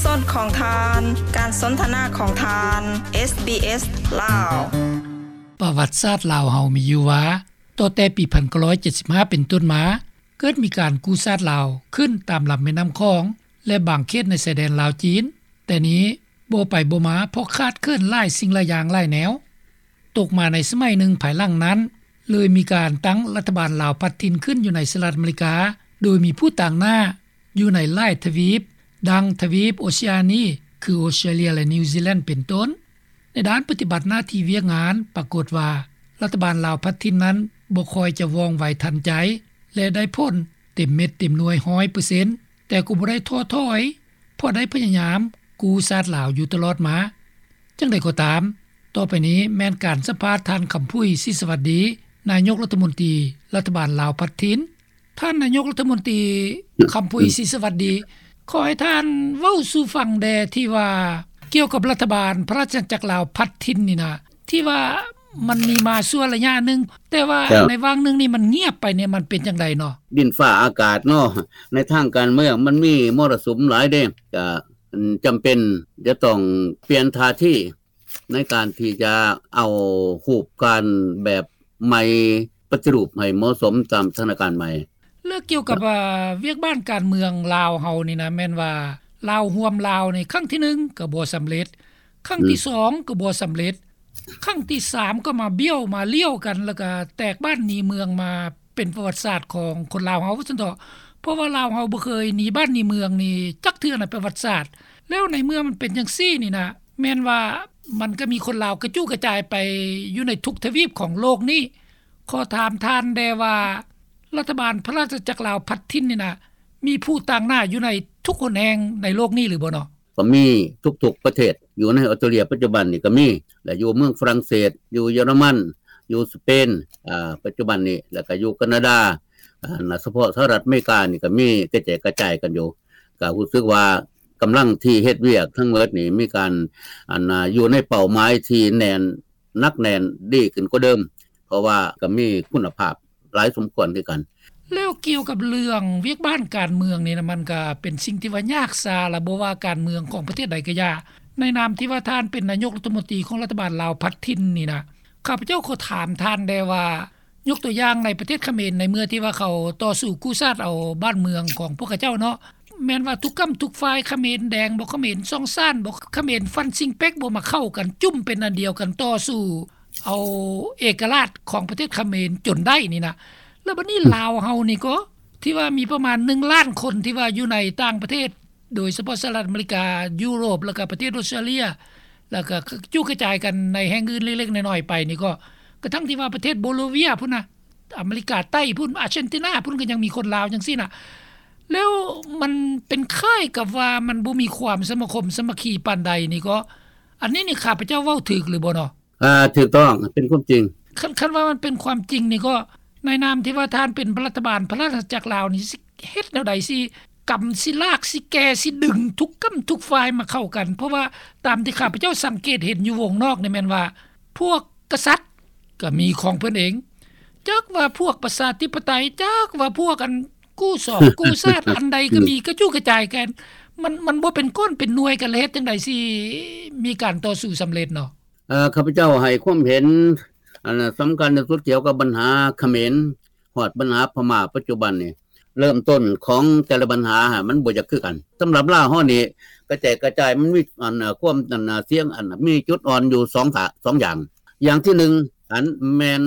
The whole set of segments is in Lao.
ສອນຂອງທ່ານ ການສົນທະນາຂອງທ່ານ ເອສບີເອສ ລາວ. ປະຫວັດສາດລາວເຮົາມີຢູ່ວ່າ ຕໍ່ແຕ່ປີໜຶ່ງພັນເກົ້າຮ້ອຍເຈັດສິບຫ້າເປັນຕົ້ນມາ ເກີດມີການກູ້ຊາດລາວຂຶ້ນຕາມລຳແມ່ນ້ຳຂອງ ແລະ ບາງເຂດໃນຊາຍແດນລາວ-ຈີນ, ແຕ່ນີ້ບໍ່ໄປບໍ່ມາ ເພາະຂາດເຂີນຫຼາຍສິ່ງຫຼາຍຢ່າງຫຼາຍແນວ. ຕົກມາໃນສະໄໝໜຶ່ງພາຍຫຼັງນັ້ນ ເລີຍມີການຕັ້ງລັດຖະບານລາວພັດຖິ່ນຂຶ້ນຢູ່ໃນສະຫະລັດອາເມລິກາ ໂດຍມີຜູ້ຕາງໜ້າຢູ່ໃນຫຼາຍທະວີບ ດັ່ງທະວີບໂອເຊຍານີ ຄື ອອສເຕຣເລຍ ແລະ ນິວຊີແລນ ເປັນຕົ້ນ. ໃນດ້ານປະຕິບັດໜ້າທີ່ວຽກງານ ປາກົດວ່າລັດຖະບານລາວພັດຖິ່ນນັ້ນບໍ່ຄ່ອຍຈະວ່ອງໄວທັນໃຈ ແລະ ໄດ້ຜົນເຕັມເມັດເຕັມໜ່ວຍຮ້ອຍເປີເຊັນ ແຕ່ກໍບໍ່ໄດ້ທໍ້ຖອຍ ເພາະໄດ້ພະຍາຍາມກູ້ຊາດລາວຢູ່ຕະຫຼອດມາ. ຈັ່ງໃດກໍຕາມ, ຕໍ່ໄປນີ້ແມ່ນການສຳພາດທ່ານ ຄຳຜຸຍ ສີສະຫວັດດີ ນາຍົກລັດຖະມົນຕີລັດຖະບານລາວພັດຖິ່ນ. ທ່ານນາຍົກລັດຖະມົນຕີ ຄຳຜຸຍ ສີສະຫວັດດີ, ຂໍໃຫ້ທ່ານເວົ້າສູ່ຟັງແດ່ ທີ່ວ່າກ່ຽວກັບລັດຖະບານພະລາຊະອານາຈັກລາວພັດຖິ່ນນີ້ນະ ທີ່ວ່າມັນມີມາຊົ່ວໄລຍະໜຶ່ງ, ແຕ່ວ່າ ເຈົ້າ ໃນຫວ່າງໜຶ່ງນີ້ມັນງຽບໄປນີ້ ມັນເປັນຈັ່ງໃດເນາະ? ດິນຟ້າອາກາດເນາະ, ໃນທາງການເມືອງມັນມີມໍລະສຸມຫຼາຍເດ້, ກະ ອືມ ຈຳເປັນຈະຕ້ອງປ່ຽນທ່າທີໃນການທີ່ຈະເອົາຮູບການແບບໃໝ່ ປະຕິຮູບໃຫ້ເໝາະສົມຕາມສະຖານະການໃໝ່. ແລ້ວກ່ຽວກັບ ເອີ່ ວຽກບ້ານການເມືອງລາວເຮົານີ້ນະ ແມ່ນວ່າລາວຮ່ວມລາວນີ້ ຄັ້ງທີໜຶ່ງກໍບໍ່ສຳເລັດ, ຄັ້ງທີ ອືມ ສອງກໍບໍ່ສຳເລັດ, ຄັ້ງທີສາມກໍມາບ້ຽວມາລ້ຽວກັນ ແລ້ວກໍແຕກບ້ານໜີເມືອງມາ ເປັນປະຫວັດສາດຂອງຄົນລາວເຮົາວ່າຊັ້ນເຖາະ, ເພາະວ່າລາວເຮົາບໍ່ເຄີຍໜີບ້ານໜີເມືອງນີ້ຈັກເທື່ອໃນປະຫວັດສາດ. ແລ້ວໃນເມື່ອມັນເປັນຈັ່ງຊີ້ນີ້ນະ ແມ່ນວ່າມັນກໍມີຄົນລາວກະຈຸກະຈາຍໄປຢູ່ໃນທຸກທະວີບຂອງໂລກນີ້. ຂໍຖາມທ່ານແດ່ວ່າ ລັດຖະບານພະລາຊະອານາຈັກລາວພັດຖິ່ນນີ້ນະ ມີຜູ້ຕາງໜ້າຢູ່ໃນທຸກຫົນແຫ່ງໃນໂລກນີ້ຫຼືບໍ່ເນາະ? ກໍມີທຸກໆປະເທດ, ຢູ່ໃນອອສເຕຣເລຍປັດຈຸບັນນີ້ກໍມີ ແລະ ຢູ່ເມືອງຝຣັ່ງເສດ, ຢູ່ເຢຍລະມັນ, ຢູ່ສະເປນ ອາ ປັດຈຸບັນນີ້, ແລ້ວກໍຢູ່ການາດາ, ອາ ສະເພາະສະຫະລັດອາເມລິການີ້ກໍມີກະແຈກກະຈາຍກັນຢູ່. ກໍຮູ້ສຶກວ່າກຳລັງທີ່ເຮັດວຽກທັງໝົດນີ້ມີການ ອັນ ອາ ຢູ່ໃນເປົ້າໝາຍທີ່ແໜ້ນ ໜັກແໜ້ນດີຂຶ້ນກວ່າເດີມ, ເພາະວ່າກໍມີຄຸນນະພາບຫຼາຍສົມຄວນຄືກັນ. ແລ້ວກ່ຽວກັບເລື່ອງວຽກບ້ານການເມືອງນີ້ນະ ມັນກໍເປັນສິ່ງທີ່ວ່າຍາກຊາລະ ບໍ່ວ່າການເມືອງຂອງປະເທດໃດກໍຢ່າ. ໃນນາມທີ່ວ່າທ່ານເປັນນາຍົກລັດຖະມົນຕີຂອງລັດຖະບານລາວພັດຖິ່ນນີ້ນະ, ຂ້າພະເຈົ້າຂໍຖາມທ່ານແດ່ວ່າ ຍົກຕົວຢ່າງໃນປະເທດຂະເໝນ ໃນເມື່ອທີ່ວ່າເຂົາຕໍ່ສູ້ກູ້ຊາດເອົາບ້ານເມືອງຂອງພວກເຂົາເຈົ້າເນາະ, ແມ່ນວ່າທຸກກ້ຳທຸກຝ່າຍ ຂະເໝນແດງບໍ ຂະເໝນຊ່ອງຊານບໍ ຂະເໝນຟັນຊິງເປັກບໍ ມາເຂົ້າກັນຈຸ້ມເປັນອັນດຽວກັນ ຕໍ່ສູ້ເອົາເອກະລາດຂອງປະເທດຂະເໝນຈົນໄດ້ນີ້ນະ. ແລ້ວບັດນີ້ ອືມ ລາວເຮົານີ້ກໍ ທີ່ວ່າມີປະມານໜຶ່ງລ້ານຄົນ ທີ່ວ່າຢູ່ໃນຕ່າງປະເທດ ໂດຍສະເພາະສະຫະລັດອາເມລິກາ, ຢູໂຣບ ແລ້ວກໍປະເທດອອສເຕຣເລຍ ແລ້ວກໍກະຈຸກະຈາຍກັນໃນແຫ່ງອື່ນເລັກໆນ້ອຍໆໄປນີ້ກໍ ກະທັ່ງທີ່ວ່າປະເທດໂບໂລເວຍພຸ້ນນະ, ອາເມລິກາໃຕ້ພຸ້ນ, ອາເຈັນຕິນາພຸ້ນ ກໍຍັງມີຄົນລາວຈັ່ງຊີ້ນະ. ແລ້ວມັນເປັນຄ້າຍກັບວ່າມັນບໍ່ມີຄວາມສະມາຄົມສາມັກຄີປານໃດນີ້ກໍ ອັນນີ້ນີ້ຂ້າພະເຈົ້າເວົ້າຖືກຫຼືບໍ່ເນາະ? ອ່າ ຖືກຕ້ອງ, ເປັນຄວາມຈິງ. ຄັນ, ຄັນວ່າມັນເປັນຄວາມຈິງນີ້ກໍ ໃນນາມທີ່ວ່າທ່ານເປັນລັດຖະບານພະລາຊະອານາຈັກລາວນີ້ ຊິເຮັດແນວໃດ ຊິກຳ ຊິລາກ ຊິແກ່ ຊິດຶງທຸກກ້ຳທຸກຝ່າຍມາເຂົ້າກັນ? ເພາະວ່າຕາມທີ່ຂ້າພະເຈົ້າສັງເກດເຫັນຢູ່ວົງນອກນີ້ ແມ່ນວ່າພວກກະສັດກໍມີຂອງເພິ່ນເອງ, ຈັກວ່າພວກປະຊາທິປະໄຕ, ຈັກວ່າພວກອັນກູ້ສອງກູ້ຊາດ ອັນໃດກໍມີ ກະຈຸກະຈາຍກັນ. ມັນ, ມັນບໍ່ເປັນກ້ອນເປັນໜ່ວຍກັນ ແລ້ວເຮັດຈັ່ງໃດຊິມີການຕໍ່ສູ້ສຳເລັດເນາະ? ເອີ ຂ້າພະເຈົ້າໃຫ້ຄວາມເຫັນ ອັນສຳຄັນທີ່ສຸດກ່ຽວກັບບັນຫາຂະເໝນ ຮອດບັນຫາພະມ້າປັດຈຸບັນນີ້ ເລີ່ມຕົ້ນຂອງແຕ່ລະບັນຫາຫັ້ນ ມັນບໍ່ຢາກຄືກັນ. ສຳລັບລາວເຮົານີ້ ກະແຈກກະຈາຍ ມັນມີ ອັນ ຄວາມ ອັນ ສຽງ ອັນ ມີຈຸດອ່ອນຢູ່ສອງ ສອງຢ່າງ. ຢ່າງທີໜຶ່ງ ອັນແມ່ນ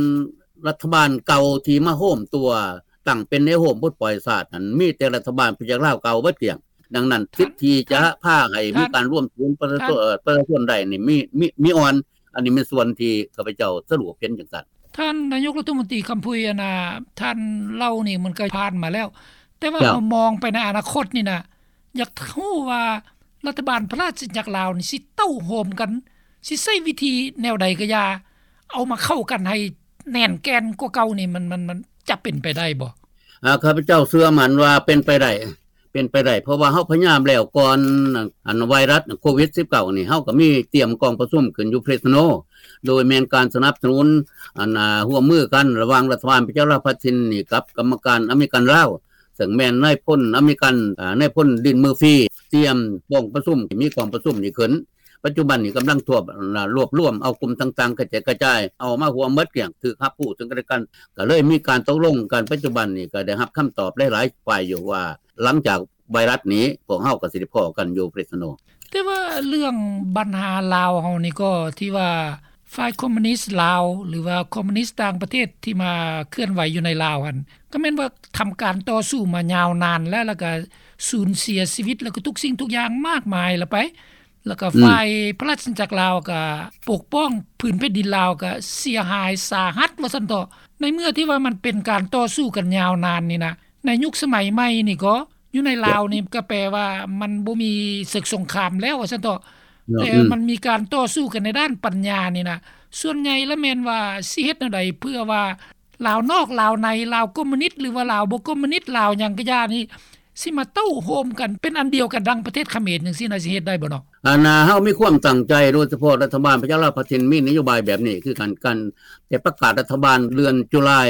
ລັດຖະບານເກົ່າທີ່ມາໂຮມຕົວ ຕັ້ງເປັນແນວໂຮມປົດປ່ອຍຊາດນັ້ນ ມີແຕ່ລັດຖະບານປະຊາຊົນລາວເກົ່າເບິດກ້ຽງ. ດັ່ງນັ້ນ ສິດທີ່ຈະພາໃຫ້ມີການລວມສູນປະຊາຊົນ ເອີ ປະຊາຊົນໄດ້ນີ້ມີ ມີ ມີອ່ອນ. ອັນນີ້ແມ່ນສ່ວນທີ່ຂ້າພະເຈົ້າສະຫຼຸບເຫັນຈັ່ງຊັ້ນ. ທ່ານນາຍົກລັດຖະມົນຕີຄຳຜຸຍ ອັນນ່າ ທ່ານເລົ່ານີ້ມັນກໍຜ່ານມາແລ້ວ, ແຕ່ວ່າເຮົາມອງໄປໃນອະນາຄົດນີ້ນະ ຢາກຮູ້ວ່າລັດຖະບານພະລາຊະອານາຈັກລາວນີ້ ຊິເຕົ້າໂຮມກັນ ຊິໃຊ້ວິທີແນວໃດກໍຢ່າ ເອົາມາເຂົ້າກັນໃຫ້ແໜ້ນແກ່ນກວ່າເກົ່ານີ້ ມັນ ມັນ ມັນຈະເປັນໄປໄດ້ບໍ່? ອາ ຂ້າພະເຈົ້າເຊື່ອໝັ້ນວ່າເປັນໄປໄດ້ ເປັນໄປໄດ້ ເພາະວ່າເຮົາພະຍາຍາມແລ້ວກ່ອນ ອັນ ໄວຣັສໂຄວິດສິບເກົ້ານີ້ ເຮົາກໍມີຕຽມກອງປະຊຸມຂຶ້ນຢູ່ເຟຣສໂນ ໂດຍແມ່ນການສະໜັບສະໜູນ ອັນ ຮ່ວມມືກັນລະຫວ່າງລັດຖະບານປະຊາລັດພັດຖິ່ນນີ້ກັບກຳມະການອາເມລິກັນລາວ ເຊິ່ງແມ່ນນາຍພົນອາເມລິກັນ ອາ ນາຍພົນດິນເມີຟີ ຕຽມກອງປະຊຸມ ມີກອງປະຊຸມນີ້ຂຶ້ນ. ປັດຈຸບັນນີ້ກຳລັງທວບ ລວບລວມເອົາກຸ່ມຕ່າງໆ ກະແຈກກະຈາຍ ເອົາມາຮ່ວມໝົດກ້ຽງ ຖືກຮັບຮູ້ເຊິ່ງກັນແລະກັນ ກະເລີຍມີການຕົກລົງກັນ. ປັດຈຸບັນນີ້ກະໄດ້ຮັບຄຳຕອບຫຼາຍໆຝ່າຍຢູ່ວ່າ ຫຼັງຈາກໄວຣັສນີ້ ພວກເຮົາກະຊິໄດ້ພໍ້ກັນຢູ່ເຟຣສໂນ. ແຕ່ວ່າເລື່ອງບັນຫາລາວເຮົານີ້ກໍ ທີ່ວ່າຝ່າຍຄອມມູນິດລາວ ຫຼືວ່າຄອມມູນິດຕ່າງປະເທດທີ່ມາເຄື່ອນໄຫວຢູ່ໃນລາວຫັ້ນ ກໍແມ່ນວ່າທຳການຕໍ່ສູ້ມາຍາວນານແລ້ວ ແລ້ວກໍສູນເສຍຊີວິດ ແລ້ວກໍທຸກສິ່ງທຸກຢ່າງມາກມາຍລະໄປ ແລ້ວກໍ ອືມ ຝ່າຍພະລາຊະອານາຈັກລາວກໍປົກປ້ອງພື້ນແຜ່ນດິນລາວກໍເສຍຫາຍສາຫັດວ່າຊັ້ນເຖາະ. ໃນເມື່ອທີ່ວ່າມັນເປັນການຕໍ່ສູ້ກັນຍາວນານນີ້ນະ ໃນຍຸກສະໄໝໃໝ່ນີ້ກໍ ຢູ່ໃນລາວນີ້ ເຈົ້າ ກໍແປວ່າມັນບໍ່ມີເສິກສົງຄາມແລ້ວວ່າຊັ້ນເຖາະ ເນາະ ແຕ່ ອືມ ມັນມີການຕໍ່ສູ້ກັນໃນດ້ານປັນຍານີ້ນະ ສ່ວນໃຫຍ່ລະແມ່ນວ່າຊິເຮັດແນວໃດເພື່ອວ່າລາວນອກລາວໃນ ລາວຄອມມູນິດ ຫຼືວ່າລາວບໍ່ຄອມມູນິດ ລາວຫຍັງກະຢ່ານີ້ ຊິມາເຕົ້າໂຮມກັນເປັນອັນດຽວກັນດັ່ງປະເທດຂະເໝນຈັ່ງຊີ້ນະ ຊິເຮັດໄດ້ບໍ່ເນາະ? ອັນນ່າ ເຮົາມີຄວາມຕັ້ງໃຈ ໂດຍສະເພາະລັດຖະບານປະຊາລັດພັດທີ່ມີນະໂຍບາຍແບບນີ້ ຄືກັນ ກັນແຕ່ປະກາດລັດຖະບານເດືອນຈຸລາຍ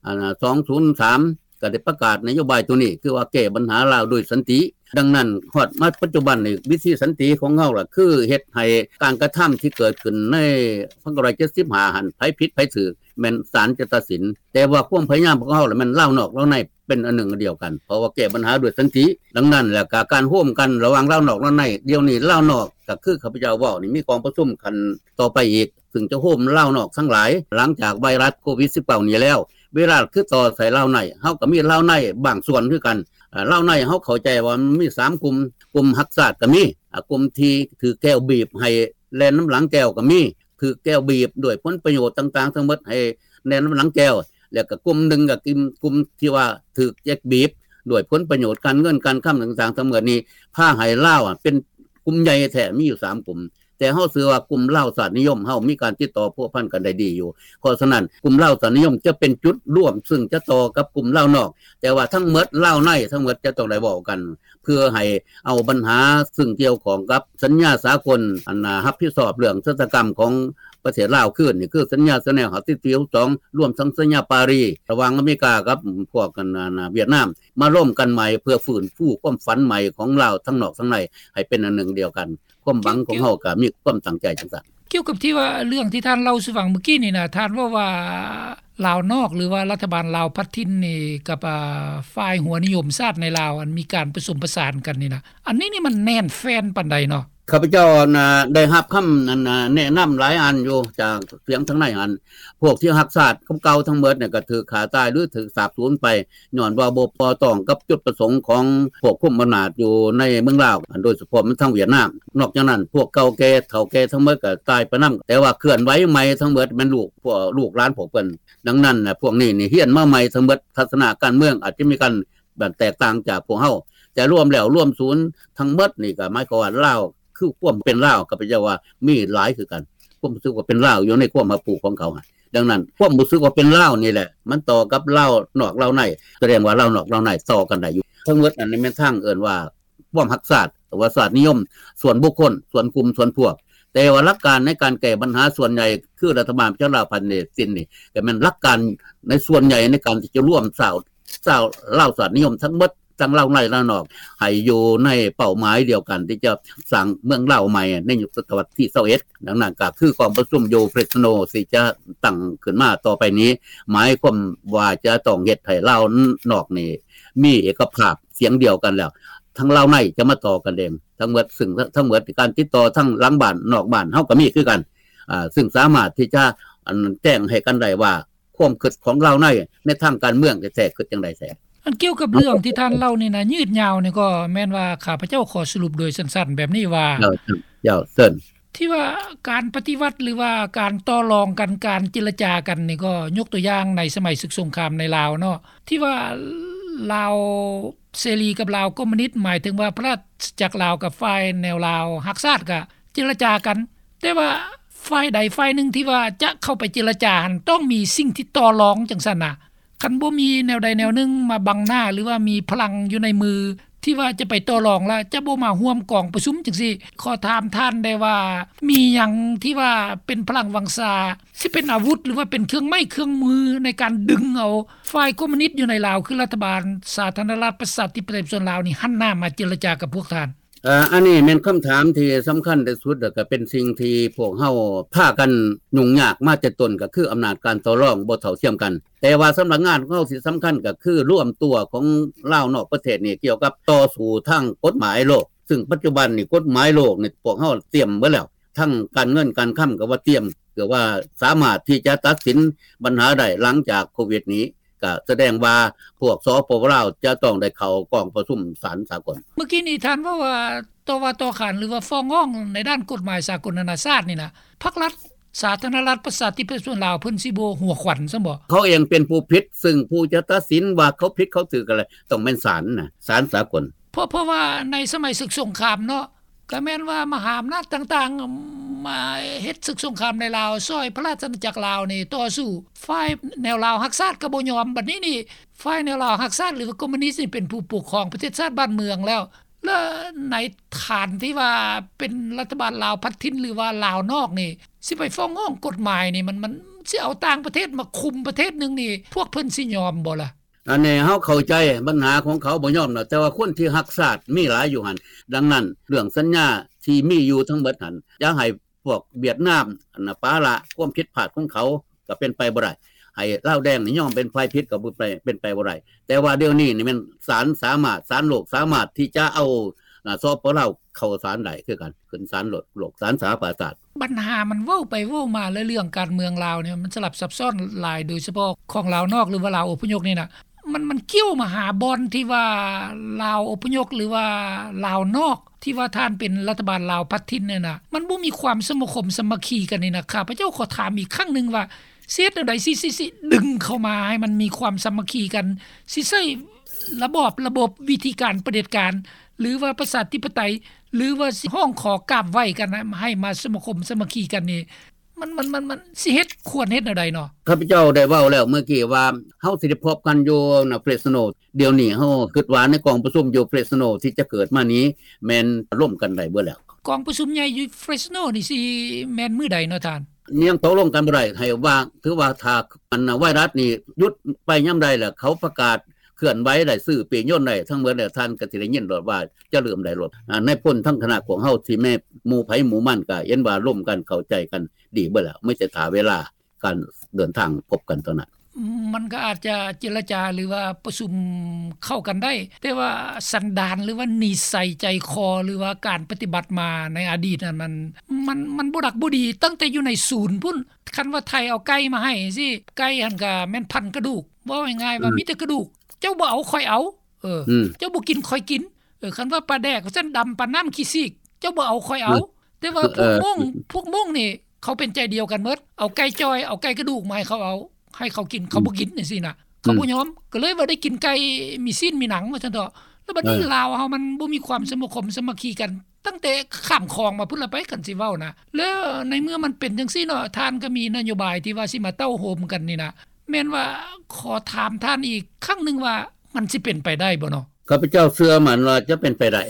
ອັນນ່າ ສອງພັນຊາວສາມ ກໍໄດ້ປະກາດນະໂຍບາຍໂຕນີ້ ຄືວ່າແກ້ບັນຫາລາວໂດຍສັນຕິ. ດັ່ງນັ້ນ ຮອດມາປັດຈຸບັນນີ້ ວິທີສັນຕິຂອງເຮົາລະ ຄືເຮັດໃຫ້ການກະທຳທີ່ເກີດຂຶ້ນໃນພັນເກົ້າຮ້ອຍເຈັດສິບຫ້າຫັ້ນ ໃຜຜິດໃຜຖືກ ແມ່ນສານຈະຕັດສິນ. ແຕ່ວ່າຄວາມພະຍາຍາມຂອງເຮົາລະ ແມ່ນລາວນອກລາວໃນ ເປັນອັນໜຶ່ງອັນດຽວກັນ ເພາະວ່າແກ້ບັນຫາດ້ວຍສັນຕິ. ດັ່ງນັ້ນແລ້ວກະການໂຮມກັນລະຫວ່າງລາວນອກລາວໃນ ດຽວນີ້ລາວນອກ ກໍຄືຂ້າພະເຈົ້າເວົ້ານີ້ ມີກອງປະຊຸມຂັ້ນຕໍ່ໄປອີກ ຊຶ່ງຈະໂຮມລາວນອກທັງຫຼາຍ ຫຼັງຈາກໄວຣັສໂຄວິດສິບເກົ້ານີ້ແລ້ວ. ເວລາຄືຕໍ່ໃສ່ລາວໃນ ເຮົາກໍມີລາວໃນບາງສ່ວນຄືກັນ. ອາ ລາວໃນເຮົາເຂົ້າໃຈວ່າມັນມີສາມກຸ່ມ ກຸ່ມຮັກຊາດກໍມີ ອາ ກຸ່ມທີ່ຖືກແກວບີບໃຫ້ແລ່ນນຳຫຼັງແກວກໍມີ ຖືກແກວບີບດ້ວຍຜົນປະໂຫຍດຕ່າງໆທັງໝົດໃຫ້ແລ່ນນຳຫຼັງແກວ ແລ້ວກໍກຸ່ມໜຶ່ງກໍກຸ່ມ ກຸ່ມທີ່ວ່າຖືກແກວບີບດ້ວຍຜົນປະໂຫຍດການເງິນການຄຳຕ່າງໆທັງໝົດນີ້ ພາໃຫ້ລາວ ອາ ເປັນກຸ່ມໃຫຍ່ແທ້ ມີຢູ່ສາມກຸ່ມ. ແຕ່ເຮົາເຊື່ອວ່າກຸ່ມລາວຊາດນິຍົມເຮົາມີການຕິດຕໍ່ພົວພັນກັນໄດ້ດີຢູ່. ເພາະສະນັ້ນ ກຸ່ມລາວຊາດນິຍົມຈະເປັນຈຸດລວມ ຊຶ່ງຈະຕໍ່ກັບກຸ່ມລາວນອກ ແຕ່ວ່າທັງໝົດລາວໃນທັງໝົດຈະຕ້ອງໄດ້ເວົ້າກັນ ເພື່ອໃຫ້ເອົາບັນຫາຊຶ່ງກ່ຽວຂ້ອງກັບສັນຍາສາກົນ ອັນ ອາ ຮັບຜິດຊອບເລື່ອງຊະຕາກຳຂອງປະເທດລາວຄືນ ນີ້ຄືສັນຍາເຈແນວຫ້າສິບສີ່ ຫົກສິບສອງ ລວມທັງສັນຍາປາຣີ ລະຫວ່າງອາເມລິກາກັບພວກ ອັນ ອາ ຫວຽດນາມ ມາລົມກັນໃໝ່ ເພື່ອຟື້ນຟູຄວາມຝັນໃໝ່ຂອງລາວທັງນອກທັງໃນໃຫ້ເປັນອັນໜຶ່ງດຽວກັນ. ຄວາມຫວັງຂອງເຮົາກໍມີຄວາມຕັ້ງໃຈຈັ່ງຊັ້ນ. ກ່ຽວກັບທີ່ວ່າເລື່ອງທີ່ທ່ານເລົ່າສູ່ຟັງເມື່ອກີ້ນີ້ນະ ທ່ານເວົ້າວ່າລາວນອກ ຫຼືວ່າລັດຖະບານລາວພັດຖິ່ນນີ້ກັບ ອາ ຝ່າຍຫົວນິຍົມຊາດໃນລາວ ອັນມີການປະສົມປະສານກັນນີ້ນະ ອັນນີ້ນີ້ມັນແໜ້ນແຟ້ນປານໃດເນາະ? ຂ້າພະເຈົ້າ ອັນ ອາ ໄດ້ຮັບຄຳ ອັນ ອາ ແນະນຳຫຼາຍອັນຢູ່ຈາກສຽງທາງໃນຫັ້ນ ພວກທີ່ຮັກຊາດເກົ່າໆທັງໝົດນີ້ກໍຖືກຂ້າຕາຍ ຫຼື ຖືກສາບສູນໄປ ຍ້ອນວ່າບໍ່ ບໍ່ຕ້ອງກັບຈຸດປະສົງຂອງພວກຄຸມອຳນາດຢູ່ໃນເມືອງລາວ ໂດຍສະເພາະແມ່ນທາງຫວຽດນາມ. ນອກຈາກນັ້ນ ພວກເກົ່າແກ່ເຖົ້າແກ່ທັງໝົດກໍຕາຍໄປນຳ ແຕ່ວ່າເຄື່ອນໄຫວໃໝ່ທັງໝົດແມ່ນລູກ ພວກລູກຫຼານພວກເພິ່ນ. ດັ່ງນັ້ນ ພວກນີ້ນີ້ຮຽນມາໃໝ່ທັງໝົດ ທັດສະນະການເມືອງອາດຈະມີການແຕກຕ່າງຈາກພວກເຮົາ ແຕ່ລວມແລ້ວລວມສູນທັງໝົດນີ້ກໍໝາຍຄວາມວ່າລາວຄືຄວາມເປັນລາວ ຂ້າພະເຈົ້າວ່າມີຫຼາຍຄືກັນ ຄວາມຮູ້ສຶກວ່າເປັນລາວຢູ່ໃນຄວາມຮັບຮູ້ຂອງເຂົາຫັ້ນ. ດັ່ງນັ້ນ ຄວາມຮູ້ສຶກວ່າເປັນລາວນີ້ແຫຼະ ມັນຕໍ່ກັບລາວນອກລາວໃນ ສະແດງວ່າລາວນອກລາວໃນຕໍ່ກັນໄດ້ຢູ່. ທັງໝົດນັ້ນແມ່ນທາງເອີ້ນວ່າຄວາມຮັກຊາດ ຫຼືວ່າຊາດນິຍົມສ່ວນບຸກຄົນ ສ່ວນກຸ່ມ ສ່ວນພວກ. ແຕ່ວ່າຫຼັກການໃນການແກ້ບັນຫາສ່ວນໃຫຍ່ ຄືລັດຖະບານປະຊາລັດພັດນີ້ ກໍແມ່ນຫຼັກການໃນສ່ວນໃຫຍ່ໃນການທີ່ຈະລວມຊາວ ຊາວລາວຊາດນິຍົມທັງໝົດ ທັງລາວໃນລາວນອກ ໃຫ້ຢູ່ໃນເປົ້າໝາຍດຽວກັນ ທີ່ຈະສ້າງເມືອງລາວໃໝ່ໃນຍຸກສະຕະວັດທີຊາວເອັດ. ດັ່ງນັ້ນກໍຄືກອງປະຊຸມຢູ່ເຟຣສໂນ ທີ່ຈະຕັ້ງຂຶ້ນມາຕໍ່ໄປນີ້ ໝາຍຄວາມວ່າຈະຕ້ອງເຮັດໃຫ້ລາວນອກນີ້ມີເອກະພາບສຽງດຽວກັນແລ້ວ ທັງລາວໃນຈະມາຕໍ່ກັນເອງທັງໝົດ ຊຶ່ງທັງໝົດການຕິດຕໍ່ທັງຫຼັງບ້ານນອກບ້ານເຮົາກໍມີຄືກັນ ອາ ຊຶ່ງສາມາດທີ່ຈະ ອັນ ແຈ້ງໃຫ້ກັນໄດ້ວ່າ ຄວາມຄິດຂອງລາວໃນ ໃນທາງການເມືອງແທ້ໆຄິດຈັ່ງໃດແທ້. ອັນກ່ຽວກັບເລື່ອງທີ່ທ່ານເລົ່ານີ້ນະ ຍືດຍາວນີ້ ກໍແມ່ນວ່າຂ້າພະເຈົ້າຂໍສະຫຼຸບໂດຍສັ້ນໆແບບນີ້ວ່າ ເຈົ້າ ເຈົ້າ ເຊີນ ທີ່ວ່າການປະຕິວັດ ຫຼືວ່າການຕໍ່ລອງກັນ ການເຈລະຈາກັນນີ້ ກໍຍົກຕົວຢ່າງໃນສະໄໝເສິກສົງຄາມໃນລາວເນາະ ທີ່ວ່າລາວເສລີກັບລາວຄອມມູນິດ ໝາຍເຖິງວ່າພະລາຊະອານາຈັກລາວກັບຝ່າຍແນວລາວຮັກຊາດ ກໍເຈລະຈາກັນ ແຕ່ວ່າຝ່າຍໃດຝ່າຍໜຶ່ງທີ່ວ່າຈະເຂົ້າໄປເຈລະຈາຫັ້ນ ຕ້ອງມີສິ່ງທີ່ຕໍ່ລອງຈັ່ງຊັ້ນນະ. ຄັນບໍ່ມີແນວໃດແນວໜຶ່ງມາບັງໜ້າ ຫຼືວ່າມີພະລັງຢູ່ໃນມື ທີ່ວ່າຈະໄປຕໍ່ລອງ ແລະ ຈະບໍ່ມາຮ່ວມກອງປະຊຸມຈັ່ງຊີ້. ຂໍຖາມທ່ານໄດ້ວ່າ ມີຫຍັງທີ່ວ່າເປັນພະລັງວັງຊາ ຊິເປັນອາວຸດ ຫຼືວ່າເປັນເຄື່ອງໄມ້ເຄື່ອງມືໃນການດຶງເອົາຝ່າຍຄອມມູນິດຢູ່ໃນລາວ ຄືລັດຖະບານສາທາລະນະລັດປະຊາທິປະໄຕປະຊາຊົນລາວນີ້ ຫັນໜ້າມາເຈລະຈາກັບພວກທ່ານ? ເອີ ອັນນີ້ແມ່ນຄຳຖາມທີ່ສຳຄັນທີ່ສຸດ ແລະ ກໍເປັນສິ່ງທີ່ພວກເຮົາພາກັນຫຍຸ້ງຍາກມາແຕ່ຕົ້ນ ກໍຄືອຳນາດການຕໍ່ລອງບໍ່ເທົ່າທຽມກັນ. ແຕ່ວ່າສຳນັກງານຂອງເຮົາທີ່ສຳຄັນກໍຄືລວມຕົວຂອງລາວນອກປະເທດນີ້ ກ່ຽວກັບຕໍ່ສູ້ທາງກົດໝາຍໂລກ, ຊຶ່ງປັດຈຸບັນນີ້ກົດໝາຍໂລກນີ້ພວກເຮົາຕຽມເບິດແລ້ວ, ທັງການເງິນການຄຳກໍວ່າຕຽມ, ເພື່ອວ່າສາມາດທີ່ຈະຕັດສິນບັນຫາໄດ້ຫຼັງຈາກໂຄວິດນີ້. ກະສະແດງວ່າພວກ ສປປ ລາວ ຈະຕ້ອງໄດ້ເຂົ້າກອງປະຊຸມສານສາກົນ. ເມື່ອກີ້ນີ້ທ່ານເວົ້າວ່າ ຕໍ່ວ່າຕໍ່ຂານ ຫຼືວ່າຟ້ອງຮ້ອງໃນດ້ານກົດໝາຍສາກົນນານາຊາດນີ້ນະ ພັກລັດສາທາລະນະລັດປະຊາທິປະໄຕປະຊາຊົນລາວ ເພິ່ນຊິບໍ່ຫົວຂວັນຊ້ຳບໍ? ເຂົາເອງເປັນຜູ້ຜິດ, ຊຶ່ງຜູ້ຈະຕັດສິນວ່າເຂົາຜິດເຂົາຖືກກໍແລ້ວ ຕ້ອງແມ່ນສານນະ, ສານສາກົນ. ເພາະ ເພາະວ່າໃນສະໄໝເສິກສົງຄາມເນາະ ກໍແມ່ນວ່າມະຫາອຳນາດຕ່າງໆ ມາເຮັດເສິກສົງຄາມໃນລາວ ຊ່ອຍພະລາຊະອານາຈັກລາວນີ້ຕໍ່ສູ້. ຝ່າຍແນວລາວຮັກຊາດກໍບໍ່ຍອມ. ບັດນີ້ນີ້ ຝ່າຍແນວລາວຮັກຊາດ ຫຼືວ່າຄອມມູນິດນີ້ ເປັນຜູ້ປົກຄອງປະເທດຊາດບ້ານເມືອງແລ້ວ ແລະ ໃນຖານທີ່ວ່າເປັນລັດຖະບານລາວພັດຖິ່ນ ຫຼືວ່າລາວນອກນີ້ ຊິໄປຟ້ອງຮ້ອງກົດໝາຍນີ້ ມັນ ມັນຊິເອົາຕ່າງປະເທດມາຄຸມປະເທດໜຶ່ງນີ້ ພວກເພິ່ນຊິຍອມບໍ່ລະ? ອັນນີ້ເຮົາເຂົ້າໃຈບັນຫາຂອງເຂົາບໍ່ຍອມດອກ, ແຕ່ວ່າຄົນທີ່ຮັກຊາດມີຫຼາຍຢູ່ຫັ້ນ. ດັ່ງນັ້ນ ເລື່ອງສັນຍາທີ່ມີຢູ່ທັງເບິດຫັ້ນ ຢ່າໃຫ້ພວກຫວຽດນາມ ອັນນະ ປະລະຄວາມຜິດພາດຂອງເຂົາ ກໍເປັນໄປບໍ່ໄດ້. ໃຫ້ລາວແດງນີ້ຍອມເປັນຝ່າຍຜິດ ກໍບໍ່ໄປ ເປັນໄປບໍ່ໄດ້. ແຕ່ວ່າດຽວນີ້ນີ້ແມ່ນສານສາມາດ ສານໂລກສາມາດທີ່ຈະເອົາ ນະ ສປປ ລາວ ເຂົ້າສານໄດ້ຄືກັນ, ຂຶ້ນສານໂລກ ສານສະຫະປະຊາຊາດ. ບັນຫາມັນເວົ້າໄປເວົ້າມາ ແລະ ເລື່ອງການເມືອງລາວນີ້ມັນສະຫຼັບຊັບຊ້ອນຫຼາຍ, ໂດຍສະເພາະຂອງລາວນອກ ຫຼືວ່າລາວອົບພະຍົບນີ້ນະ ມັນ ມັນກ່ຽວມາຫາບ່ອນທີ່ວ່າລາວອົບພະຍົບ ຫຼືວ່າລາວນອກ ທີ່ວ່າທ່ານເປັນລັດຖະບານລາວພັດຖິ່ນນີ້ນະ ມັນບໍ່ມີຄວາມສະມາຄົມສາມັກຄີກັນນີ້ນະ. ຂ້າພະເຈົ້າຂໍຖາມອີກຄັ້ງໜຶ່ງວ່າ ຊິເຮັດແນວໃດ ຊິ ຊິ ຊິດຶງເຂົ້າມາໃຫ້ມັນມີຄວາມສາມັກຄີກັນ, ຊິໃຊ້ລະບອບ ລະບົບ ວິທີການປະເດັດການ ຫຼືວ່າປະຊາທິປະໄຕ ຫຼືວ່າຊິຮ້ອງຂໍກາບໄຫວ້ກັນໃຫ້ມາສະມາຄົມສາມັກຄີກັນນີ້ ມັນ ມັນ ມັນ ມັນຊິເຮັດ ຄວນເຮັດແນວໃດເນາະ? ຂ້າພະເຈົ້າໄດ້ເວົ້າແລ້ວເມື່ອກີ້ວ່າ ເຮົາຊິໄດ້ພົບກັນຢູ່ນະ ເຟຣສໂນ. ດຽວນີ້ເຮົາຄິດວ່າໃນກອງປະຊຸມຢູ່ເຟຣສໂນທີ່ຈະເກີດມານີ້ ແມ່ນລົມກັນໄດ້ເບິດແລ້ວ. ກອງປະຊຸມໃຫຍ່ຢູ່ເຟຣສໂນນີ້ຊິແມ່ນມື້ໃດເນາະທ່ານ? ຍັງຕົກລົງກັນບໍ່ໄດ້ ໃຫ້ວ່າ ຖືວ່າຖ້າອັນໄວຣັສນີ້ຢຸດໄປຍາມໃດແລ້ວ ເຂົາປະກາດເຄື່ອນໄຫວໄດ້ ຊື້ປີ້ຍົນໄດ້ທັງເບິດແລ້ວ ທ່ານກໍຊິໄດ້ຍິນໂລດວ່າຈະເລີ່ມໄດ້ໂລດ. ອາ ນາຍພົນທັງຄະນະຂອງເຮົາ ທີ່ແມ່ນໝູ່ໃຜໝູ່ມັນ ກໍເຫັນວ່າລົມກັນເຂົ້າໃຈກັນດີເບິດແລ້ວ ມີແຕ່ຖ້າເວລາ ການເດີນທາງພົບກັນເທົ່ານັ້ນ. ມັນກໍອາດຈະເຈລະຈາ ຫຼືວ່າປະຊຸມເຂົ້າກັນໄດ້, ແຕ່ວ່າສັນດານ ຫຼືວ່ານິໄສໃຈຄໍ ຫຼືວ່າການປະຕິບັດມາໃນອະດີດນັ້ນ ມັນ ມັນ ມັນບໍ່ດັກບໍ່ດີ ຕັ້ງແຕ່ຢູ່ໃນສູນພຸ້ນ. ຄັນວ່າໄທເອົາໄກ່ມາໃຫ້ຈັ່ງຊີ້ ໄກ່ຫັ້ນກໍແມ່ນພັນກະດູກ, ເວົ້າງ່າຍໆວ່າ ອືມ ມີແຕ່ກະດູກ, ເຈົ້າບໍ່ເອົາ ຂ້ອຍເອົາ, ເອີ ອືມ ເຈົ້າບໍ່ກິນ ຂ້ອຍກິນ, ເອີ ຄັນວ່າປາແດກວ່າຊັ້ນ ດຳປານນ້ຳຂີ້ຊີກ, ເຈົ້າບໍ່ເອົາ ຂ້ອຍເອົາ. ອືມ ແຕ່ວ່າພວກມົ້ງ ເອີ ພວກມົ້ງນີ້ ເຂົາເປັນໃຈດຽວກັນໝົດ, ເອົາໄກ່ຈ່ອຍ ເອົາໄກ່ກະດູກມາໃຫ້ເຂົາເອົາ ໃຫ້ເຂົາກິນ ເຂົາບໍ່ກິນ ອືມ ຈັ່ງຊີ້ນະ, ເຂົາບໍ່ຍອມ. ອືມ ກໍເລີຍວ່າໄດ້ກິນໄກ່ມີຊີ້ນມີໜັງວ່າຊັ້ນເຖາະ. ແລ້ວບັດນີ້ ເອີ ລາວເຮົາມັນບໍ່ມີຄວາມສະມາຄົມສາມັກຄີກັນ ຕັ້ງແຕ່ຂ້າມຂອງມາພຸ້ນລະໄປ ຄັນຊິເວົ້ານະ. ແລ້ວໃນເມື່ອມັນເປັນຈັ່ງຊີ້ເນາະ ທ່ານກໍມີນະໂຍບາຍທີ່ວ່າຊິມາເຕົ້າໂຮມກັນນີ້ນະ ແມ່ນວ່າ ຂໍຖາມທ່ານອີກຄັ້ງໜຶ່ງວ່າ ມັນຊິເປັນໄປໄດ້ບໍ່ເນາະ? ຂ້າພະເຈົ້າເຊື່ອໝັ້ນວ່າຈະເປັນໄປໄດ້.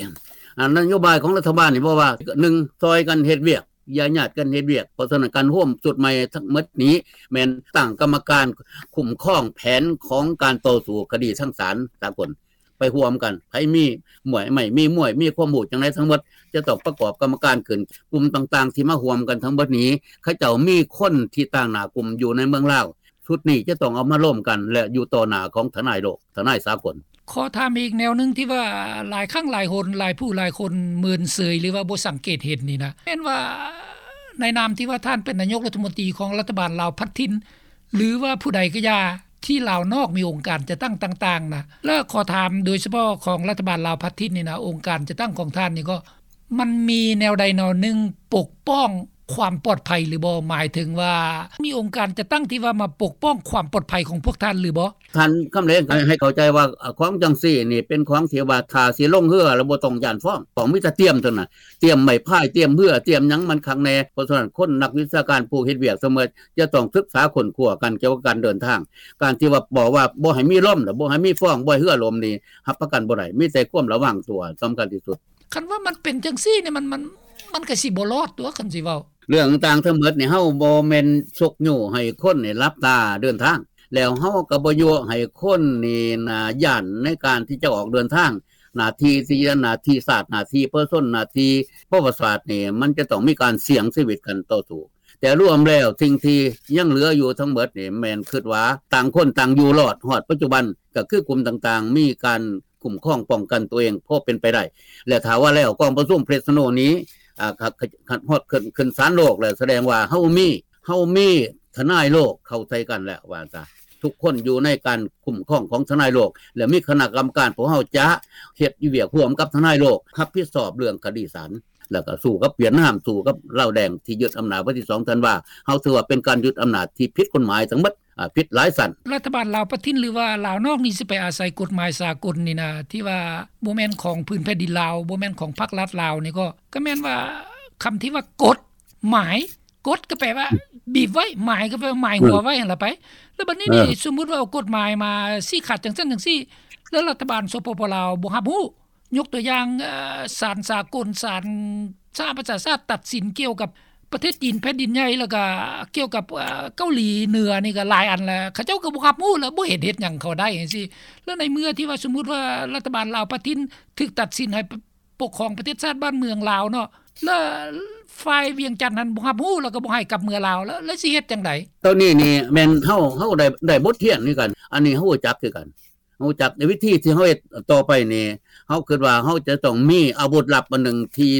ອັນນະໂຍບາຍຂອງລັດຖະບານນີ້ ເວົ້າວ່າ ໜຶ່ງ ຊ່ອຍກັນເຮັດວຽກ ຢ່າຍາດກັນເຮັດວຽກ. ເພາະສະນັ້ນ ການໂຮມຊຸດໃໝ່ທັງໝົດນີ້ ແມ່ນຕັ້ງກຳມະການຄຸ້ມຄອງແຜນຂອງການຕໍ່ສູ້ຄະດີທາງສານສາກົນ ໄປຮ່ວມກັນ. ໃຜມີມວຍ ໄມ່ມີມວຍ ມີຄວາມຮູ້ຈັ່ງໃດທັງໝົດ ຈະຕ້ອງປະກອບກຳມະການຂຶ້ນ. ກຸ່ມຕ່າງໆທີ່ມາຮ່ວມກັນທັງໝົດນີ້ ເຂົາເຈົ້າມີຄົນທີ່ຕາງໜ້າກຸ່ມຢູ່ໃນເມືອງລາວ. ຊຸດນີ້ຈະຕ້ອງເອົາມາລົມກັນ ແລະ ຢູ່ຕໍ່ໜ້າຂອງທະນາຍໂລກ ທະນາຍສາກົນ. ຂໍຖາມອີກແນວໜຶ່ງທີ່ວ່າຫຼາຍຄັ້ງຫຼາຍຫົນ ຫຼາຍຜູ້ຫຼາຍຄົນເມີນເສີຍ ຫຼືວ່າບໍ່ສັງເກດເຫັນນີ້ນະ ແມ່ນວ່າໃນນາມທີ່ວ່າທ່ານເປັນນາຍົກລັດຖະມົນຕີຂອງລັດຖະບານລາວພັດຖິ່ນ ຫຼືວ່າຜູ້ໃດກໍຢ່າ ທີ່ລາວນອກມີອົງການຈັດຕັ້ງຕ່າງໆນະ ແລະ ຂໍຖາມໂດຍສະເພາະຂອງລັດຖະບານລາວພັດຖິ່ນນີ້ນະ ອົງການຈັດຕັ້ງຂອງທ່ານນີ້ກໍ ມັນມີແນວໃດແນວໜຶ່ງປົກປ້ອງ ຄວາມປອດໄພຫຼືບໍ່? ໝາຍເຖິງວ່າມີອົງການຈັດຕັ້ງທີ່ວ່າມາປົກປ້ອງຄວາມປອດໄພຂອງພວກທ່ານຫຼືບໍ່? ທ່ານຄຳແລງໃຫ້ເຂົ້າໃຈວ່າ ອາ ຂອງຈັ່ງຊີ້ນີ້ເປັນຂອງທີ່ວ່າຖ້າຊິລົງເຮືອແລ້ວບໍ່ຕ້ອງຢ້ານຟ້ອງ ຕ້ອງມີແຕ່ຕຽມເທົ່ານັ້ນ ຕຽມໄມ້ພາຍ ຕຽມເຮືອ ຕຽມຫຍັງມັນຄັກແນ່. ເພາະສະນັ້ນຄົນນັກວິຊາການຜູ້ເຮັດວຽກສະເໝີ ຈະຕ້ອງສຶກສາຄົ້ນຄວ້າກັນກ່ຽວກັບການເດີນທາງ. ການທີ່ວ່າບອກວ່າບໍ່ໃຫ້ມີລົມ ແລ້ວບໍ່ໃຫ້ມີຟ້ອງ ບໍ່ໃຫ້ເຮືອລົ້ມນີ້ ຮັບປະກັນບໍ່ໄດ້ ມີແຕ່ຄວາມລະວັງຕົວສຳຄັນທີ່ສຸດ. ຄັນວ່າມັນເປັນຈັ່ງຊີ້ນີ້ ມັນ ມັນ ມັນກໍຊິບໍ່ລອດຕົວະ ຄັນຊິເວົ້າ. ເລື່ອງຕ່າງທັງໝົດນີ້ ເຮົາບໍ່ແມ່ນຊຸກຍູ້ໃຫ້ຄົນນີ້ຫຼັບຕາເດີນທາງ ແລ້ວເຮົາກໍບໍ່ຍົວະໃຫ້ຄົນນີ້ນາຢ້ານໃນການທີ່ຈະອອກເດີນທາງ. ໜ້າທີ່ທີ່ ໜ້າທີ່ຊາດ ໜ້າທີ່ປະຊາຊົນ ໜ້າທີ່ປະຫວັດສາດນີ້ ມັນຈະຕ້ອງມີການສ່ຽງຊີວິດກັນຕໍ່ສູ້. ແຕ່ລວມແລ້ວສິ່ງທີ່ຍັງເຫຼືອຢູ່ທັງໝົດນີ້ ແມ່ນຄິດວ່າຕ່າງຄົນຕ່າງຢູ່ລອດ. ຮອດປັດຈຸບັນກໍຄືກຸ່ມຕ່າງໆ ມີການຄຸ້ມຄອງປ້ອງກັນຕົວເອງພໍເປັນໄປໄດ້ ແລະ ຖ້າວ່າແລ້ວກອງປະຊຸມເຟຣສໂນນີ້ ອາ ຄັນຮອດຂຶ້ນ ຂຶ້ນສານໂລກແລ້ວ ສະແດງວ່າເຮົາມີ ເຮົາມີທະນາຍໂລກເຂົ້າໃສ່ກັນແລ້ວວ່າຊະ. ທຸກຄົນຢູ່ໃນການຄຸ້ມຄອງຂອງທະນາຍໂລກ ແລະ ມີຄະນະກຳມະການ ພວກເຮົາຈະເຮັດວຽກຮ່ວມກັບທະນາຍໂລກ ຮັບຜິດຊອບເລື່ອງຄະດີສານ ແລ້ວກໍສູ້ກັບຫວຽດນາມ ສູ້ກັບລາວແດງທີ່ຍຶດອຳນາດວັນທີສອງທັນວາ. ເຮົາຖືວ່າເປັນການຍຶດອຳນາດທີ່ຜິດກົດໝາຍທັງໝົດ ອາ ຜິດຫຼາຍຊັ້ນ. ລັດຖະບານລາວປະທິນ ຫຼືວ່າລາວນອກນີ້ ຊິໄປອາໄສກົດໝາຍສາກົນນີ້ນະ ທີ່ວ່າບໍ່ແມ່ນຂອງພື້ນແຜ່ນດິນລາວ ບໍ່ແມ່ນຂອງພັກລັດລາວນີ້ ກໍ ກໍແມ່ນວ່າຄຳທີ່ວ່າກົດໝາຍ ກົດກໍແປວ່າ ອືມ ບີບໄວ້ ໝາຍກໍແປວ່າໝາຍຫົວໄວ້ຫັ້ນລະໄປ. ແລ້ວບັດນີ້ນີ້ ເອີ ສົມມຸດວ່າເອົາກົດໝາຍມາຊີ້ຂາດຈັ່ງຊັ້ນຈັ່ງຊີ້ ແລ້ວລັດຖະບານ ສປປ ລາວ ບໍ່ຮັບຮູ້ ຍົກຕົວຢ່າງ ເອີ ສານສາກົນ ສານສະຫະປະຊາຊາດຕັດສິນກ່ຽວກັບປະເທດຈີນແຜ່ນດິນໃຫຍ່ ແລ້ວກະກ່ຽວກັບ ເອີ ເກົາຫຼີເໜືອນີ້ກະຫຼາຍອັນແລ້ວ ເຂົາເຈົ້າກໍບໍ່ຮັບຮູ້ ແລ້ວບໍ່ເຫັນເຮັດຫຍັງເຂົາໄດ້ຈັ່ງຊີ້. ແລ້ວໃນເມື່ອທີ່ວ່າ ສົມມຸດວ່າລັດຖະບານລາວປະທິນຖືກຕັດສິນໃຫ້ ປ- ປົກຄອງປະເທດຊາດບ້ານເມືອງລາວເນາະ ແລ້ວຝ່າຍວຽງຈັນຫັ້ນບໍ່ຮັບຮູ້ ແລ້ວກໍບໍ່ໃຫ້ກັບເມືອລາວ ແລ້ວ ແລ້ວຊິເຮັດຈັ່ງໃດ? ໂຕນີ້ນີ້ແມ່ນເຮົາ ເຮົາໄດ້ ໄດ້ບົດຮຽນຄືກັນ ອັນນີ້ເຮົາຮູ້ຈັກຄືກັນ ຮູ້ຈັກໃນວິທີທີ່ເຮົາເຮັດຕໍ່ໄປນີ້ ເຮົາຄິດວ່າເຮົາຈະຕ້ອງມີອາວຸດລັບອັນໜຶ່ງທີ່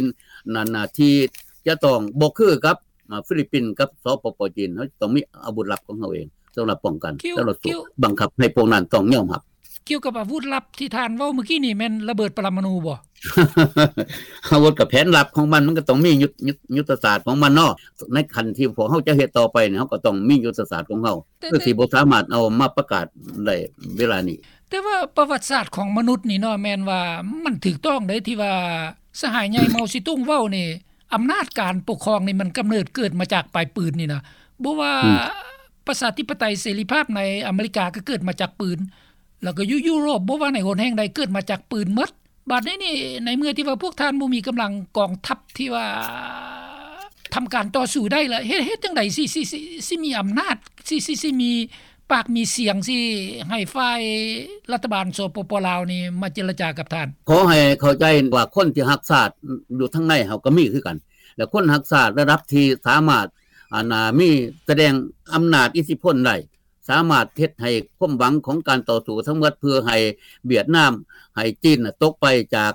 ນັ້ນນະ ທີ່ຈະຕ້ອງບໍ່ຄືກັບ ມາ ຟີລິບປິນກັບ ສປປ ຈີນ ເຮົາຈະຕ້ອງມີອາວຸດລັບຂອງເຮົາເອງ ສຳລັບປ້ອງກັນ ສຳລັບສູ້ບັງຄັບໃຫ້ພວກນັ້ນຕ້ອງຍອມຮັບ. ກ່ຽວກັບອາວຸດລັບທີ່ທ່ານເວົ້າມື້ກີ້ນີ້ ແມ່ນລະເບີດປະລະມະນູບໍ່? ອາວຸດກໍແຜນລັບຂອງມັນ ມັນກໍຕ້ອງມີຍຸດ ຍຸດ ຍຸດທະສາດຂອງມັນເນາະ ໃນຂັ້ນທີ່ພວກເຮົາຈະເຮັດຕໍ່ໄປນີ້ ເຮົາກໍຕ້ອງມີຍຸດທະສາດຂອງເຮົາ ແຕ່ ຄືຊິບໍ່ສາມາດເອົາມາປະກາດໄດ້ເວລານີ້. ແຕ່ວ່າປະຫວັດສາດຂອງມະນຸດນີ້ເນາະ ແມ່ນວ່າມັນຖືກຕ້ອງເດ້ ທີ່ວ່າສະຫາຍໃຫຍ່ເມົາຊີຕຸງເວົ້ານີ້ ອຳນາດການປົກຄອງນີ້ມັນກຳເນີດເກີດມາຈາກປາຍປືນນີ້ນະ ບໍ່ວ່າ ອືມ ປະຊາທິປະໄຕເສລີພາບໃນອາເມລິກາກໍເກີດມາຈາກປືນ ແລ້ວກໍຢູ່ຢູໂຣບ ບໍ່ວ່າໃນຫົນແຫ່ງໃດເກີດມາຈາກປືນໝົດ. ບາດນີ້ນີ້ ໃນເມື່ອທີ່ວ່າພວກທ່ານບໍ່ມີກຳລັງກອງທັບທີ່ວ່າທຳການຕໍ່ສູ້ໄດ້ລະ ເຮັດ ເຮັດຈັ່ງໃດຊິ ຊິ ຊິ ຊິມີອຳນາດ ຊິ ຊິ ຊິມີປາກມີສຽງ ຊິໃຫ້ຝ່າຍລັດຖະບານ ສປປ ລາວນີ້ມາເຈລະຈາກັບທ່ານ? ຂໍໃຫ້ເຂົ້າໃຈວ່າຄົນທີ່ຮັກຊາດຢູ່ທາງໃນເຮົາກໍມີຄືກັນ ແລະ ຄົນຮັກຊາດລະດັບທີ່ສາມາດ ອັນ ອາ ມີ ສະແດງອຳນາດອິດທິພົນໄດ້ ສາມາດເຮັດໃຫ້ຄວາມຫວັງຂອງການຕໍ່ສູ້ທັງໝົດ ເພື່ອໃຫ້ຫວຽດນາມ ໃຫ້ຈີນຕົກໄປຈາກ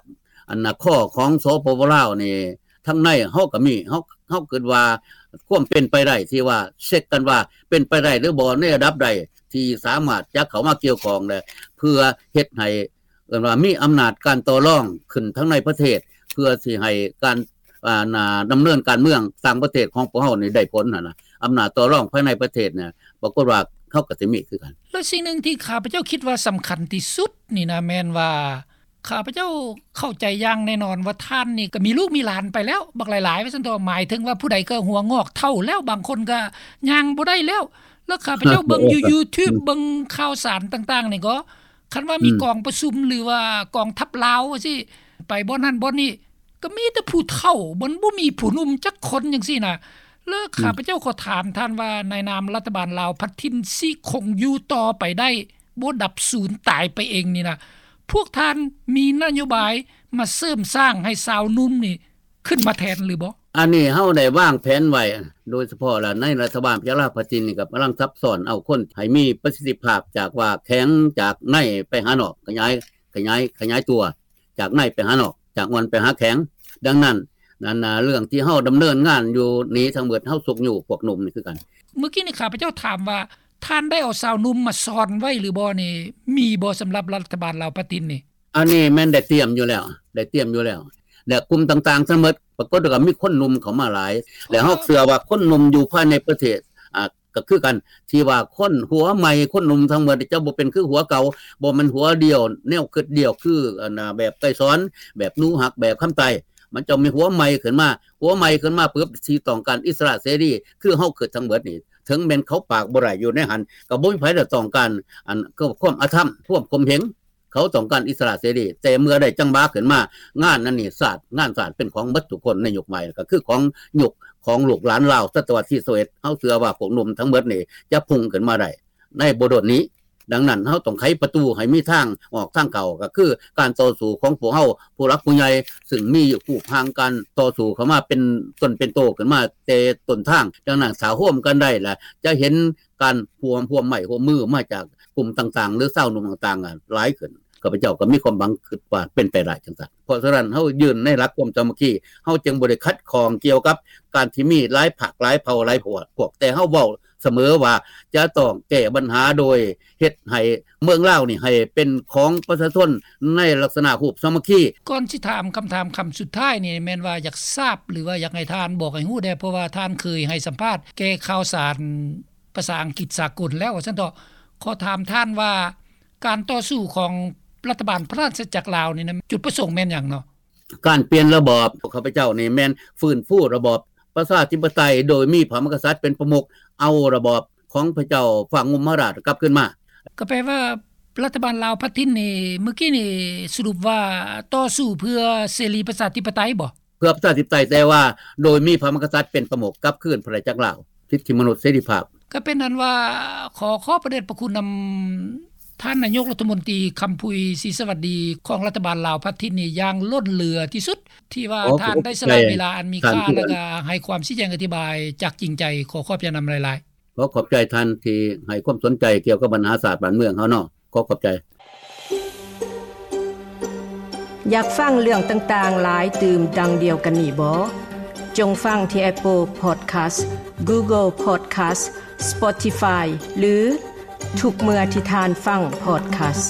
ອັນນະ ຄໍຂອງ ສປປ ລາວນີ້ ທາງໃນເຮົາກໍມີ ເຮົາ ເຮົາຄິດວ່າຄວາມເປັນໄປໄດ້ ທີ່ວ່າເຊັກກັນວ່າເປັນໄປໄດ້ຫຼືບໍ່ ໃນລະດັບໃດທີ່ສາມາດຈະເຂົ້າມາກ່ຽວຂ້ອງ ແລະ ເພື່ອເຮັດໃຫ້ ເອີ້ນວ່າມີອຳນາດການຕໍ່ລອງຂຶ້ນທັງໃນປະເທດ ເພື່ອຊິໃຫ້ການ ອ່າ ດຳເນີນການເມືອງຕ່າງປະເທດຂອງພວກເຮົານີ້ໄດ້ຜົນຫັ້ນນະ ອຳນາດຕໍ່ລອງພາຍໃນປະເທດນີ້ ປາກົດວ່າເຮົາກໍຊິມີຄືກັນ. ແລະ ສິ່ງໜຶ່ງທີ່ຂ້າພະເຈົ້າຄິດວ່າສຳຄັນທີ່ສຸດນີ້ນະ ແມ່ນວ່າ ຂ້າພະເຈົ້າເຂົ້າໃຈຢ່າງແນ່ນອນວ່າທ່ານນີ້ກໍມີລູກມີຫຼານໄປແລ້ວບັກຫຼາຍໆ ວ່າຊັ້ນເຖາະ ໝາຍເຖິງວ່າຜູ້ໃດກໍຫົວງອກເຖົ້າແລ້ວ ບາງຄົນກໍຍ່າງບໍ່ໄດ້ແລ້ວ ແລ້ວຂ້າພະເຈົ້າເບິ່ງຢູ່ຢູທູບ ເບິ່ງຂ່າວສານຕ່າງໆນີ້ກໍ ຄັນວ່າມີ ອືມ ກອງປະຊຸມ ຫຼືວ່າກອງທັບລາວວ່າຊີ້ ໄປບ່ອນນັ້ນບ່ອນນີ້ ກໍມີແຕ່ຜູ້ເຖົ້າ ມັນບໍ່ມີຜູ້ໜຸ່ມຈັກຄົນຈັ່ງຊີ້ນະ. ແລ້ວ ອືມ ຂ້າພະເຈົ້າຂໍຖາມທ່ານວ່າ ໃນນາມລັດຖະບານລາວພັດຖິ່ນຊິຄົງຢູ່ຕໍ່ໄປໄດ້ ບໍ່ດັບສູນຕາຍໄປເອງນີ້ນະ ພວກທ່ານມີນະໂຍບາຍມາເສີມສ້າງໃຫ້ຊາວໜຸ່ມນີ້ ຂຶ້ນມາແທນຫຼືບໍ່? ອັນນີ້ເຮົາໄດ້ວາງແຜນໄວ້ ໂດຍສະເພາະລະໃນລັດຖະບານພະຍາລາວພັດຖິ່ນນີ້ ກໍກຳລັງຊັບຊ້ອນເອົາຄົນໃຫ້ມີປະສິດທິພາບ ຈາກວ່າແຂງຈາກໃນໄປຫານອກ ຂະຫຍາຍ ຂະຫຍາຍ ຂະຫຍາຍຕົວຈາກໃນໄປຫານອກ ຈາກອ່ອນໄປຫາແຂງ. ດັ່ງນັ້ນ ອັນນະ ເລື່ອງທີ່ເຮົາດຳເນີນງານຢູ່ນີ້ທັງໝົດ ເຮົາຊຸກຍູ້ພວກໜຸ່ມນີ້ຄືກັນ. ມື້ກີ້ນີ້ຂ້າພະເຈົ້າຖາມວ່າ ທ່ານໄດ້ເອົາຊາວໜຸ່ມມາຊ້ອນໄວ້ຫຼືບໍ່ນີ້ ມີບໍ່ສຳລັບລັດຖະບານລາວປະຕິນນີ້? ອັນນີ້ແມ່ນໄດ້ຕຽມຢູ່ແລ້ວ ໄດ້ຕຽມຢູ່ແລ້ວ ແລະ ກຸ່ມຕ່າງໆທັງໝົດ ປ ປາກົດວ່າມີຄົນໜຸ່ມເຂົ້າມາຫຼາຍ ແລະເຮົາເຊື່ອວ່າຄົນໜຸ່ມຢູ່ພາຍໃນປະເທດ ອ່າ ກໍຄືກັນ ທີ່ວ່າຄົນຫົວໃໝ່ ຄົນໜຸ່ມທັງໝົດຈະບໍ່ເປັນຄືຫົວເກົ່າ ບໍ່ແມ່ນຫົວດຽວ ແນວຄິດດຽວ ຄືອັນນາ ແບບໄກສອນ ແບບໜູຮັກ ແບບຄຳໃຕ້ ມັນຈະມີຫົວໃໝ່ຂຶ້ນມາ ຫົວໃໝ່ຂຶ້ນມາປຶບ ທີ່ຕ້ອງການອິດສະຫຼະເສລີ ຄືເຮົາຄິດທັງໝົດນີ້ ເຖິງແມ່ນເຂົາປາກບໍ່ໄດ້ຢູ່ໃນຫັ້ນ ກໍບໍ່ມີໃຜໄດ້ຕ້ອງການ ອັນ ຄວາມອະທຳ ຄວາມຂົ່ມເຫງ ເຂົາຕ້ອງການອິດສະຫຼະເສລີ ແຕ່ເມື່ອໄດ້ຈັງຫວະຂຶ້ນມາ ງານອັນນີ້ຊາດ ງານຊາດເປັນຂອງໝົດທຸກຄົນໃນຍຸກໃໝ່ ກໍຄືຂອງຍຸກຂອງລູກຫຼານລາວ ສະຕະວັດທີຊາວເອັດ ເຮົາເຊື່ອວ່າພວກໜຸ່ມທັງໝົດນີ້ຈະພຸ່ງຂຶ້ນມາໄດ້ໃນບໍ່ດົນນີ້. ດັ່ງນັ້ນ ເຮົາຕ້ອງໄຂປະຕູໃຫ້ມີທາງອອກທາງເຂົ້າ ກໍຄືການຕໍ່ສູ້ຂອງພວກເຮົາ ຜູ້ຫຼັກຜູ້ໃຫຍ່ ຊຶ່ງມີຮູບຮ່າງການຕໍ່ສູ້ເຂົ້າມາເປັນຕົນເປັນໂຕຂຶ້ນມາແຕ່ຕົ້ນທາງ. ດັ່ງນັ້ນ ຖ້າຮ່ວມກັນໄດ້ລະ ຈະເຫັນ ການຮ່ວມ ຮ່ວມໄມ້ຮ່ວມມືມາຈາກກຸ່ມຕ່າງໆ ຫຼື ຊາວໜຸ່ມຕ່າງໆ ຫຼາຍຂຶ້ນ. ຂ້າພະເຈົ້າກໍມີຄວາມຫວັງ ຄິດວ່າເປັນໄປໄດ້ຈັ່ງຊັ້ນ. ເພາະສະນັ້ນ ເຮົາຢືນໃນຫຼັກຄວາມສາມັກຄີ ເຮົາຈຶ່ງບໍ່ໄດ້ຂັດຂ້ອງກ່ຽວກັບການທີ່ມີຫຼາຍພັກ ຫຼາຍເຜົ່າ ຫຼາຍພວກ ແຕ່ເຮົາເວົ້າສະເໝີວ່າ ຈະຕ້ອງແກ້ບັນຫາໂດຍເຮັດໃຫ້ເມືອງລາວນີ້ໃຫ້ເປັນຂອງປະຊາຊົນໃນລັກສະນະຮູບສາມັກຄີ. ກ່ອນຊິຖາມຄຳຖາມຄຳສຸດທ້າຍນີ້ ແມ່ນວ່າຢາກຊາບ ຫຼືວ່າຢາກໃຫ້ທ່ານບອກໃຫ້ຮູ້ແດ່ ເພາະວ່າທ່ານເຄີຍໃຫ້ສຳພາດແກ່ຂ່າວສານ ພາສາອັງກິດສາກົນແລ້ວ ວ່າຊັ້ນເຖາະ. ຂໍຖາມທ່ານວ່າ ການຕໍ່ສູ້ຂອງລັດຖະບານພະລາຊະອານາຈັກລາວນີ້ນະ ຈຸດປະສົງແມ່ນຫຍັງເນາະ? ການປ່ຽນລະບອບ ຂອງຂ້າພະເຈົ້ານີ້ແມ່ນຟື້ນຟູລະບອບປະຊາທິປະໄຕ ໂດຍມີພະມະຫາກະສັດເປັນປະມຸກ ເອົາລະບອບຂອງພະເຈົ້າຟ້າງຸ່ມມະຫາລາດກັບຄືນມາ. ກໍແປວ່າລັດຖະບານລາວພັດຖິ່ນນີ້ ມື້ກີ້ນີ້ສະຫຼຸບວ່າຕໍ່ສູ້ເພື່ອເສລີປະຊາທິປະໄຕບໍ? ເພື່ອປະຊາທິປະໄຕ ແຕ່ວ່າໂດຍມີພະມະຫາກະສັດເປັນປະມຸກ ກັບຄືນພະລາຊະອານາຈັກລາວ ສິດທິມະນຸດ ເສລີພາບ. ກໍເປັນອັນວ່າ ຂໍຂອບພະເດດພະຄຸນນຳທ່ານນາຍົກລັດຖະມົນຕີ ຄຳພຸຍ ສີສະຫວັດດີ ຂອງລັດຖະບານລາວພັດຖິ່ນນີ້ຢ່າງລົ້ນເຫຼືອທີ່ສຸດ ທີ່ວ່າທ່ານໄດ້ສະຫຼະເວລາອັນມີຄ່າ ແລະກະໃຫ້ຄວາມຊີ້ແຈງອະທິບາຍຈາກຈິງໃຈ. ຂໍຂອບໃຈນຳຫຼາຍໆ. ຂໍຂອບໃຈທ່ານທີ່ໃຫ້ຄວາມສົນໃຈກ່ຽວກັບບັນຫາຊາດບ້ານເມືອງເຮົາເນາະ. ຂໍຂອບໃຈ. ຢາກຟັງເລື່ອງຕ່າງໆຫຼາຍຕື່ມດັ່ງດຽວກັນນີ້ບໍ? ຈົ່ງຟັງທີ່ Apple Podcast, Google Podcast, Spotify ຫຼື ທຸກເມື່ອທີ່ທ່ານຟັງ podcast.